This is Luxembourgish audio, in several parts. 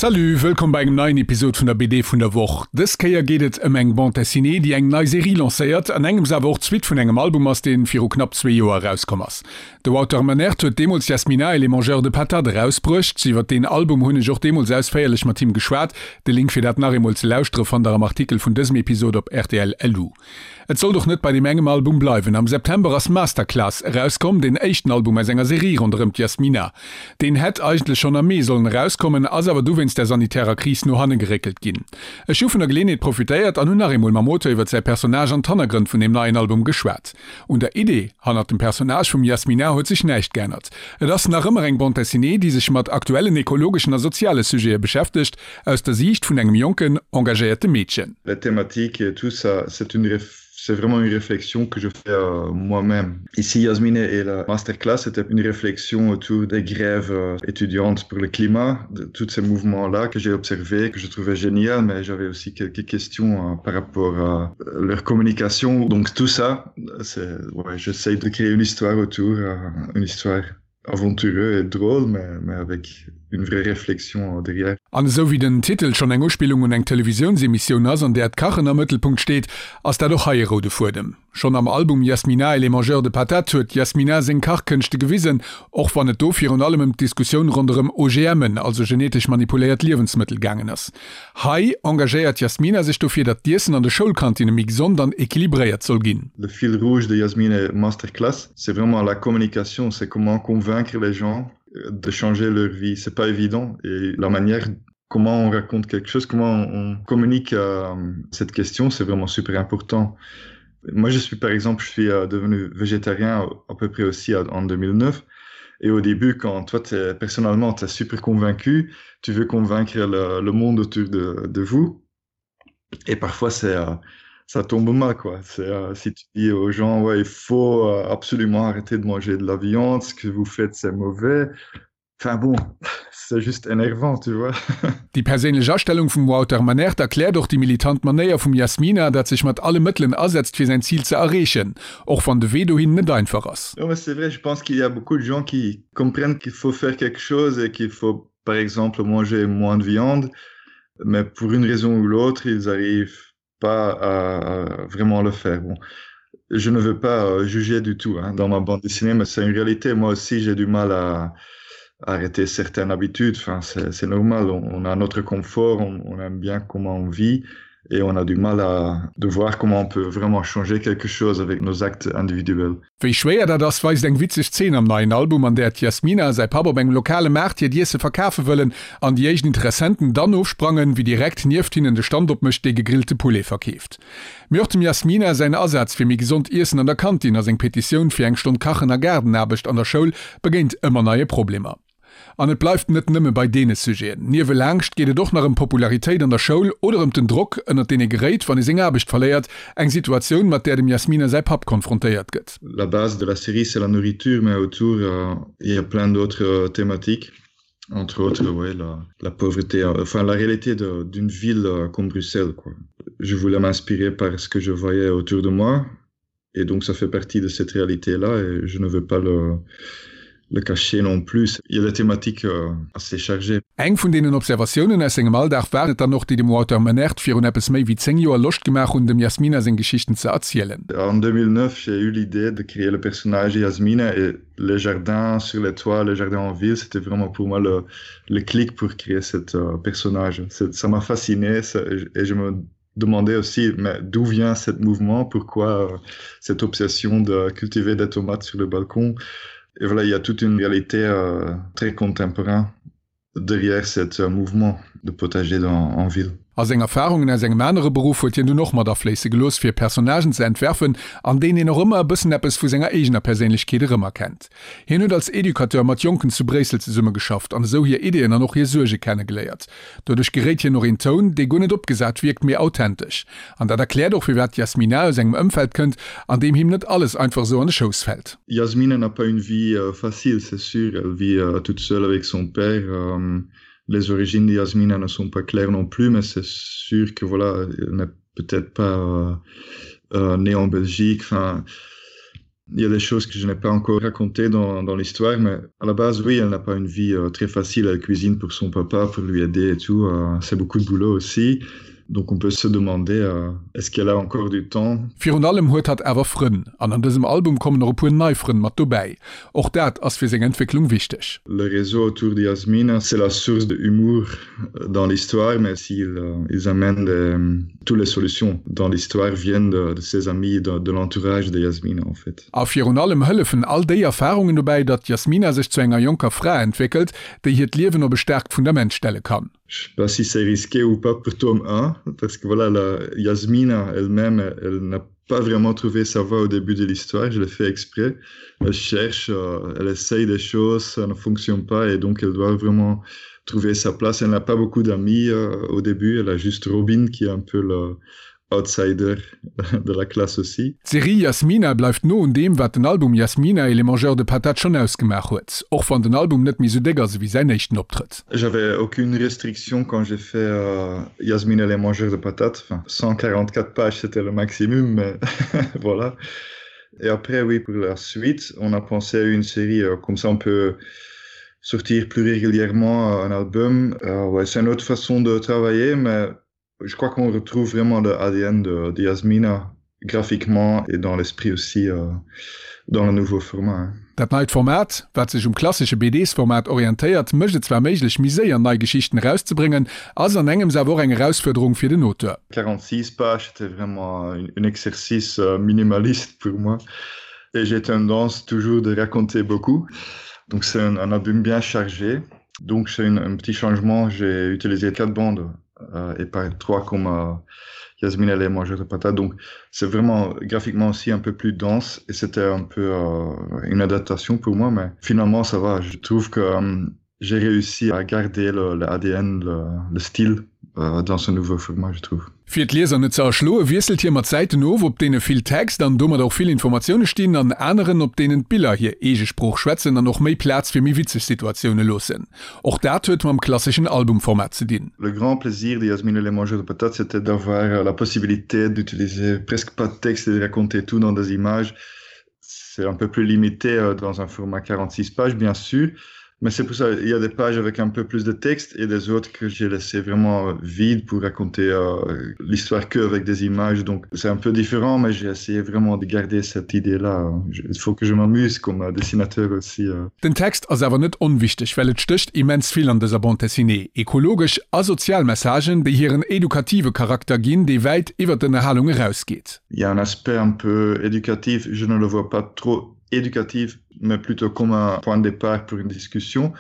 Salut, wëllkomm bei engem neien Episod vun der BD vun der Woch. Dës Kéier geet et ëm eng Bande Dessinée, déi eng nei Serie lancéiert, an engems awer och d'Suite vun engem Album ass, dee viru knapp zwee Joer erauskomm ass. De Wouter Manert huet deemools Yasmina et les mangeurs de patates erausbruecht. Iwwer deen Album hunn ech och deemools ausféierlech mat him geschwat. De Link fir dat nach eemol ze lauschtere fannt der am Artikel vun dësem Episod op rtl. Lu. Et sollt och net bei deem engem Album bleiwen. Am September ass Masterclass erauskomm, deen éischten Album aus enger Serie ronderëm d'Yasmina. Deen hätt eigentlech schonn am Mee sollen erauskommen, ass awer du wéinst der sanitärer Kris no hanne geréckelt ginn. Ech hu vun der Geleenheet profitéiert an hunn nach eemol mam Auteur iwwer säi Personnage an d'Hannergrënn vun deem neien Album geschwat. Un der Idee hannert dem Personnage vum Yasmina huet sech näischt geännert. Et ass nach ëmmer eng Bande dessinée, déi sech mat aktuellen ekologeschen a soziale Sujete beschäftegt, aus der Siicht vun engem jonken, engagéierte Meedchen. La thématique et tout ça, c'est une c'est vraiment une réflexion que je fais euh, moi-même. Ici, Yasmine et la masterclass, c'était une réflexion autour des grèves euh, étudiantes pour le climat, de tous ces mouvements-là que j'ai observés, que je trouvais génial, mais j'avais aussi quelques questions euh, par rapport à euh, leur communication. Donc tout ça, c'est ouais, j'essaye de créer une histoire autour, euh, une histoire aventureux et drôle, mais, mais avec une vraie réflexion derrière. An esou wéi den Titel schonn eng Uspillung un eng Televisiounsemissioun ass, an där d'Kachen am Mëttelpunkt steet, ass dat och hei e roude Fuedem. Schonn am Album Yasmina et les mangeurs de patates huet d'Yasmina seng Kachkënschte gewisen, och wann et do virun allem ëm d'Diskussioun ronderëm OGMen, also genetesch manipuléiert Liewensmëttel, gaangen ass. Hei engagéiert d'Yasmina sech dofir, datt d'Iessen an de Schoulkantinne méi gesond an equilibréiert soll ginn. Le fil rouge de Yasmine Masterclass, c'est vraiment la communication, c'est comment convaincre les gens de changer leur vie. C'est pas évident et la manière comment on raconte quelque chose, comment on communique euh, cette question, c'est vraiment super important. Moi, je suis par exemple, je suis euh, devenu végétarien à peu près aussi en 2009. Et au début, quand toi, es, personnellement, tu es super convaincu, tu veux convaincre le, le monde autour de, de vous. Et parfois, c'est euh, ça tombe mal, quoi. C'est, euh, si tu dis aux gens, ouais, il faut euh, absolument arrêter de manger de la viande, ce que vous faites, c'est mauvais. Enfin bon, c'est juste énervant, tu vois. Déi perséinlech Astellung vum Wouter Manert erkläert och déi militant Manéier vum Yasmina, dat sech mat alle Mëttelen asetzt fir säin Zil ze erreechen, och wann de Wee dohin net einfach ass. Non mais c'est vrai, je pense qu'il y a beaucoup de gens qui comprennent qu'il faut faire quelque chose et qu'il faut par exemple manger moins de viande, mais pour une raison ou l'autre, ils arrivent pas à, à vraiment le faire. Bon, je ne veux pas euh, juger du tout hein, dans ma bande dessinée, mais c'est une réalité. Moi aussi, j'ai du mal à arrêter certaines habitudes. Enfin, c'est normal, on, on a notre confort, on, on aime bien comment on vit et on a du mal à de voir comment on peut vraiment changer quelque chose avec nos actes individuels. Wéi schwéier dat ass, weist eng witzeg Zeen am neien Album, an där d'Yasmina a säi Papp op engem lokale Maart hiert Iesse verkafe wëllen an déi éischt Interessenten dann ofsprangen, wéi direkt nieft hinnen de Stand opmécht, dee gegrillte Poulet verkeeft. Mee och dem Yasmina säin Asaz fir méi gesond Iessen an der Kantin a seng Petitioun fir eng Stonn Kachen a Gaardenaarbecht an der Schoul begéint ëmmer neie Problemer. An et bleift net nëmme bei deene Sujeten. Niewelaangscht geet et och nach ëm Popularitéit an der Schoul oder ëm den Drock, ënnert deen ee geréit, wann ee seng Aarbecht verléiert, eng Situatioun, mat där dem Yasmina säi Papp konfrontéiert gëtt. La base de la série c'est la nourriture mais autour il y a plein d'autres thématiques, entre autres ouais la la pauvreté, enfin la réalité d'une ville comme Bruxelles quoi. Je voulais m'inspirer par ce que je voyais autour de moi et donc ça fait partie de cette réalité là et je ne veux pas le le cacher non plus. Il y a des thématiques euh, assez chargées. Eng vun deenen Observatiounen aus sengem Alldag waren et dann och, déi dem Wouter Manert virun eppes méi wéi 10 Joer Loscht gemaach hunn, dem Yasmina seng Geschichten ze erzielen. En 2009, j'ai eu l'idée de créer le personnage Yasmina et les jardins sur les toits, les jardins en ville, c'était vraiment pour moi le, le clic pour créer cet euh, personnage. Ça m'a fasciné ça, et je me demandais aussi mais d'où vient cet mouvement, pourquoi euh, cette obsession de cultiver des tomates sur le balcon. Et voilà, il y a toute une réalité euh, très contemporaine derrière cet euh, mouvement de potager dans, en ville. A seng Erfarungen aus engem anere Beruff huet hien dunn och mat afléisse gelooss, fir Personnagen ze entwerfen, an deenen een och ëmmer e bëssen eppes vu senger eegener Perséinlechkeet erëmerkennt. Hien huet als Educateur mat Jonken zu Bréissel zesummegeschafft an esou hir Ideeën an och hir Suerge kennegeléiert. Doduerch geréit hien och een Toun, dee guer net opgesat wierkt, mee authentesch. An dat erkläert och, firwat d'Yasmina aus engem Ëmfeld kënnt, an deem him net alles einfach esou an de Schouss fält. Yasmina n'a pas une vie facile, c'est sûr, elle vit toute seule avec son père. Les origines de Yasmina ne sont pas claires non plus, mais c'est sûr que voilà, elle n'est peut-être pas née en Belgique, enfin. Il y a des choses que je n'ai pas encore racontées dans, dans l'histoire, mais à la base, oui, elle n'a pas une vie euh, très facile. Elle cuisine pour son papa, pour lui aider et tout. Euh, C'est beaucoup de boulot aussi. Donc on peut se demander euh, est-ce qu'elle a encore du temps? Virun allem huet hatt awer Frënn, an an dësem Album kommen och e puer nei Frënn mat dobäi. Och dat ass fir seng Entwécklung wichteg. Le réseau autour de Yasmina, c'est la source de humour dans l'histoire, mais s'ils euh, ils amènent des, toutes les solutions dans l'histoire viennent de, de ses amis, de, de l'entourage de Yasmina en fait. A virun allem hëllefen all déi Erfarungen dobäi, datt d'Yasmina sech zu enger jonker Fra entwéckelt, déi hiert Liewen op e staarkt Fundament stelle kann. Je sais pas si c'est risqué ou pas pour tome 1, parce que voilà, la Yasmina elle-même, elle n'a pas vraiment trouvé sa voie au début de l'histoire, je l'ai fait exprès. Elle cherche, euh, elle essaye des choses, ça ne fonctionne pas et donc elle doit vraiment trouver sa place. Elle n'a pas beaucoup d'amis euh, au début, elle a juste Robin qui est un peu le outsider de la classe aussi. D'Serie Yasmina bleift no un deem, wat den Album Yasmina et les mangeurs de patates schonn ausgemaach huet, och wann den Album net méi sou déck ass ewéi säin éischten Optrëtt. J'avais aucune restriction quand j'ai fait euh, Yasmina et les mangeurs de patates. Enfin, 144 pages, c'était le maximum, mais voilà. Et après, oui, pour la suite, on a pensé à une série euh, comme ça on peut sortir plus régulièrement un album. Euh, ouais, c'est une autre façon de travailler, mais je crois qu'on retrouve vraiment le ADN de, de Yasmina graphiquement et dans l'esprit aussi euh, dans le nouveau format. Dat neit Format, wat sech um klassesche BDs-Format orientéiert, mécht et zwar méiglech, méi séier nei Geschichten erauszebréngen, ass an engems awer och eng Erausfuerderung fir den Auteur. 46 pages, c'était vraiment un exercice euh, minimaliste pour moi. Et j'ai tendance toujours de raconter beaucoup. Donc c'est un, un album bien chargé. Donc c'est un petit changement, j'ai utilisé quatre bandes euh, et pas trois comme euh, Yasmine elle est mangeur de patates. Donc c'est vraiment graphiquement aussi un peu plus dense et c'était un peu euh, une adaptation pour moi, mais finalement ça va. Je trouve que euh, j'ai réussi à garder le, le ADN, le, le style euh, dans ce nouveau format, je trouve. Fir d'Lieser net ze erschloe wiesselt hie mat Säiten of, op deene vill Text an domat och vill Informatioune stinn, an aneren, op deenen d'Biller hir eege Sprooch schwätzen an och méi Plaz fir méi witzeg Situatioune loossen. Och dat huet mam klasseschen Albumformat ze dinn. Le grand plaisir de Yasmine et les mangeurs de patates, c'était d'avoir la possibilité d'utiliser presque pas de texte et de raconter tout dans des images. C'est un peu plus limité euh, dans un format 46 pages, bien sûr, Mais c'est pour ça il y a des pages avec un peu plus de texte et des autres que j'ai laissé vraiment vide pour raconter euh, l'histoire que avec des images. Donc c'est un peu différent, mais j'ai essayé vraiment de garder cette idée là. Il faut que je m'amuse comme euh, dessinateur aussi. Euh. Den Text ass awer net onwichteg, well et stécht immens vill an dëser Bande dessinée, ekologesch a sozial Messagen, déi hiren edukative Charakter ginn, dee wäit iwwer d'Ënnerhalung erausgeet. Il y a un aspect un peu éducatif, je ne le vois pas trop éducatif, mais plutôt comme un point de départ pour une discussion.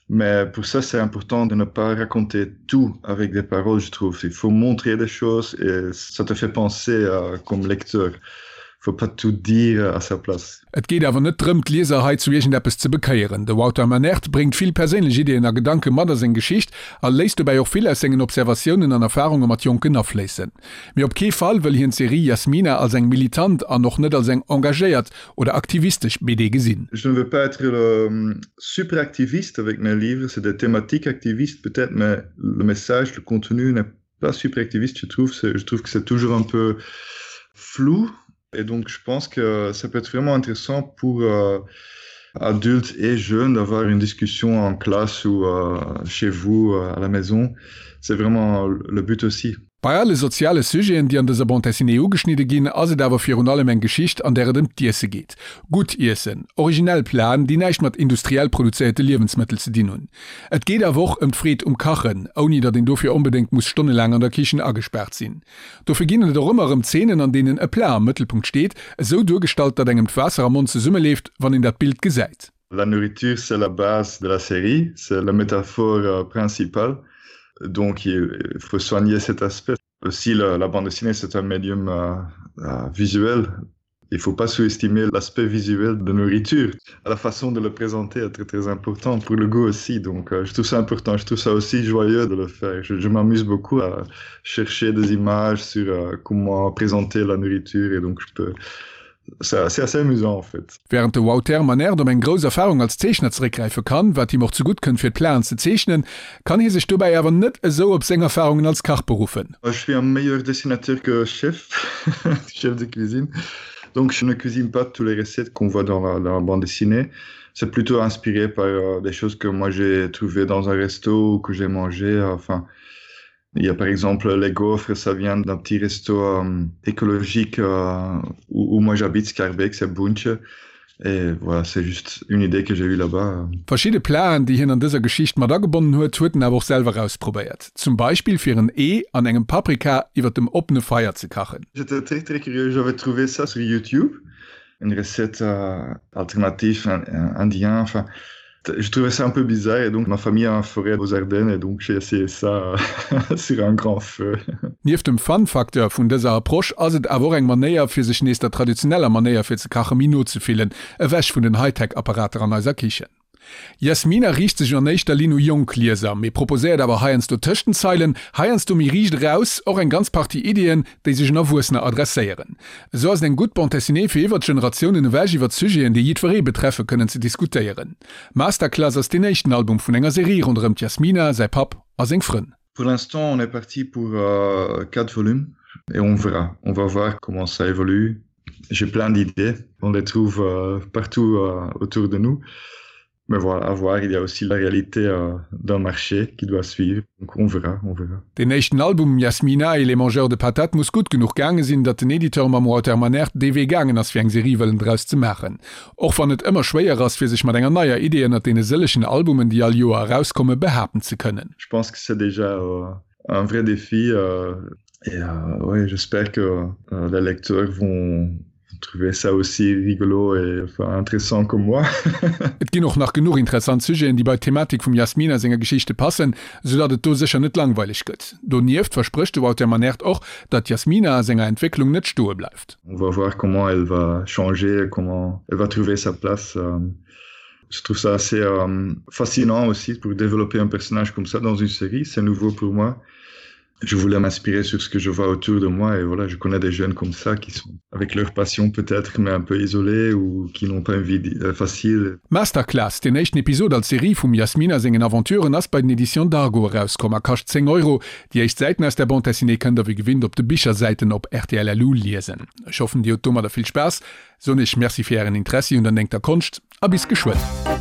Mais pour ça, c'est important de ne pas raconter tout avec des paroles, je trouve. Il faut montrer des choses et ça te fait penser euh, comme lecteur. Faut pas tout dire à sa place. Et geet awer net drëm, d'Lieser hei zu iergendeppes ze bekéieren. De Wouter Manert bréngt vill perséinlech Ideeën a Gedanke mat a seng Geschicht a léisst dobäi och vill aus sengen Observatiounen an Erfarunge mat Jonken afléissen. Mee op kee Fall wëll hien d'Serie Yasmina als eng militant an och net als eng engagéiert oder aktivistesch BD gesinn. Je ne veux pas être le super activiste avec mes livres, c'est des thématiques activistes peut-être, mais le message, le contenu n'est pas super activiste, je trouve. Je trouve que c'est toujours un peu flou et donc je pense que ça peut être vraiment intéressant pour euh, adultes et jeunes d'avoir une discussion en classe ou euh, chez vous euh, à la maison. C'est vraiment le but aussi. Bei alle soziale Sujeten, déi an dëser Bande dessinée ugeschnidde ginn, ass et awer virun allem eng Geschicht, an där et ëm d'Iesse geet. Gutt Iessen, originell Platen, déi näischt mat industriell produzéierte Liewensmëttel ze dinn hunn. Et geet awer och ëm d'Freed um Kachen, ouni datt een dofir onbedéngt muss stonnelaang an der Kichen agespaart sinn. Dofir ginn et och ëmmer erëm Zeenen, an deenen e Plat am Mëttelpunkt steet, esou duergestallt, datt engem d'Waasser am Mond zesummeleeft, wann een dat Bild gesäit. La nourriture, c'est la base de la série, c'est la métaphore euh, principale. Donc il faut soigner cet aspect. Aussi la, la bande dessinée, c'est un médium euh, euh, visuel. Il faut pas sous-estimer l'aspect visuel de nourriture. La façon de le présenter est très très important pour le goût aussi. Donc euh, je trouve ça important, je trouve ça aussi joyeux de le faire. Je, je m'amuse beaucoup à chercher des images sur euh, comment présenter la nourriture et donc je peux C'est assez amusant en fait. Wärend de Wouter Manert op eng grouss Erfarung als Zeechner zeréckgräife kann, wat him och zegutt kënnt fir d'Plaen ze zeechnen, kann hie sech dobäi awer net esou op seng Erfarungen als Kach beruffen. Je suis un meilleur dessinateur que chef, chef de cuisine. Donc je ne cuisine pas tous les recettes qu'on voit dans la, dans la bande dessinée. C'est plutôt inspiré par euh, des choses que moi j'ai trouvé dans un resto ou que j'ai mangé. Euh, enfin, il y a par exemple les gaufres, ça vient d'un petit resto euh, écologique euh, où, où moi j'habite, Scarbeck, c'est Bunche. Et voilà, c'est juste une idée que j'ai eue là-bas. Verschidde Platen, déi hien an dëser Geschicht mat agebonnen huet, huet en awer och selwer ausprobéiert. Zum Beispill fir en Ee an engem Paprika iwwer dem oppene Feier ze kachen. J'étais très très curieux, j'avais trouvé ça sur YouTube, une recette euh, alternative indien, enfin je trouvais ça un peu bizarre et donc ma famille a un forêt aux Ardennes et donc j'ai essayé ça sur un grand feu. Nieft dem Fun-Facteur vun dëser Approche ass et awer och eng Manéier fir sech nees der traditioneller Manéier fir ze kache méi no ze fillen, ewech vun den Hightech-Apparater an eiser Kichen. Yasmina riicht sech an éischter Linn u jonk Lieser, mee proposéiert awer heiansdo tëscht den Zeilen, heiansdo méi riicht eraus, och eng ganz Partie Iddien, déi sech un Erwuessener adresséieren. Esou ass et eng gutt Bande dessinée fir iwwert d'Generatiounen ewech iwwert Sujeten, déi jiddweree betreffe kënnen ze diskutéieren. Masterclass ass deen éischten Album vun enger Serie ronderëm d'Yasmina, säi Papp a seng Frënn. Pour l'instant on est parti pour 4 volumes et on verra, on va voir comment ça évolue. J'ai plein d'idées, on les trouve partout autour de nous. Mais voilà, à voir, il y a aussi la réalité euh, d'un marché qui doit suivre. Donc on verra, on verra. Deen éischten Album Yasmina et les mangeurs de patates muss gutt genuch gaange sinn, datt den Editeur mam Wouter Manert dee Wee gaangen ass fir eng Serie wëllen draus ze maachen. Och wann et ëmmer schwéier ass fir sech mat enger neier Idee ënnert deene sëllegen Albumen déi all Joer erauskommen, behaapten ze kënnen. Je pense que c'est déjà euh, un vrai défi euh, et euh, ouais, j'espère que euh, les lecteurs vont trouver ça aussi rigolo et enfin, intéressant comme moi. Et ginn och nach genuch interessant Sujeten, déi bei d'Thematik vum Yasmina senger Geschichte passen, sou datt et do sécher net langweileg gëtt. Donieft versprécht de Wouter Manert och, datt d'Yasmina a senger Entwécklung net stoe bleift. On va voir comment elle va changer, comment elle va trouver sa place. Je trouve ça assez euh, fascinant aussi pour développer un personnage comme ça dans une série, c'est nouveau pour moi. Je voulais m'inspirer sur ce que je vois autour de moi et voilà, je connais des jeunes comme ça qui sont avec leur passion peut-être mais un peu isolés ou qui n'ont pas une vie euh, facile. Masterclass, deen éischten Episod als Serie vum Yasmina sengen Aventuren ass bei den Editions Dargo erauskomm a kascht 10 Euro. Déi éischt Säiten aus der Bande dessinée kënnt der wéi gewinnt op de Bichersäiten op rtl.lu liesen. Ech hoffen dir hutt domadder vill Spaass, soen iech Merci fir ären Interessi un der néngter Konscht a bis geschwënn.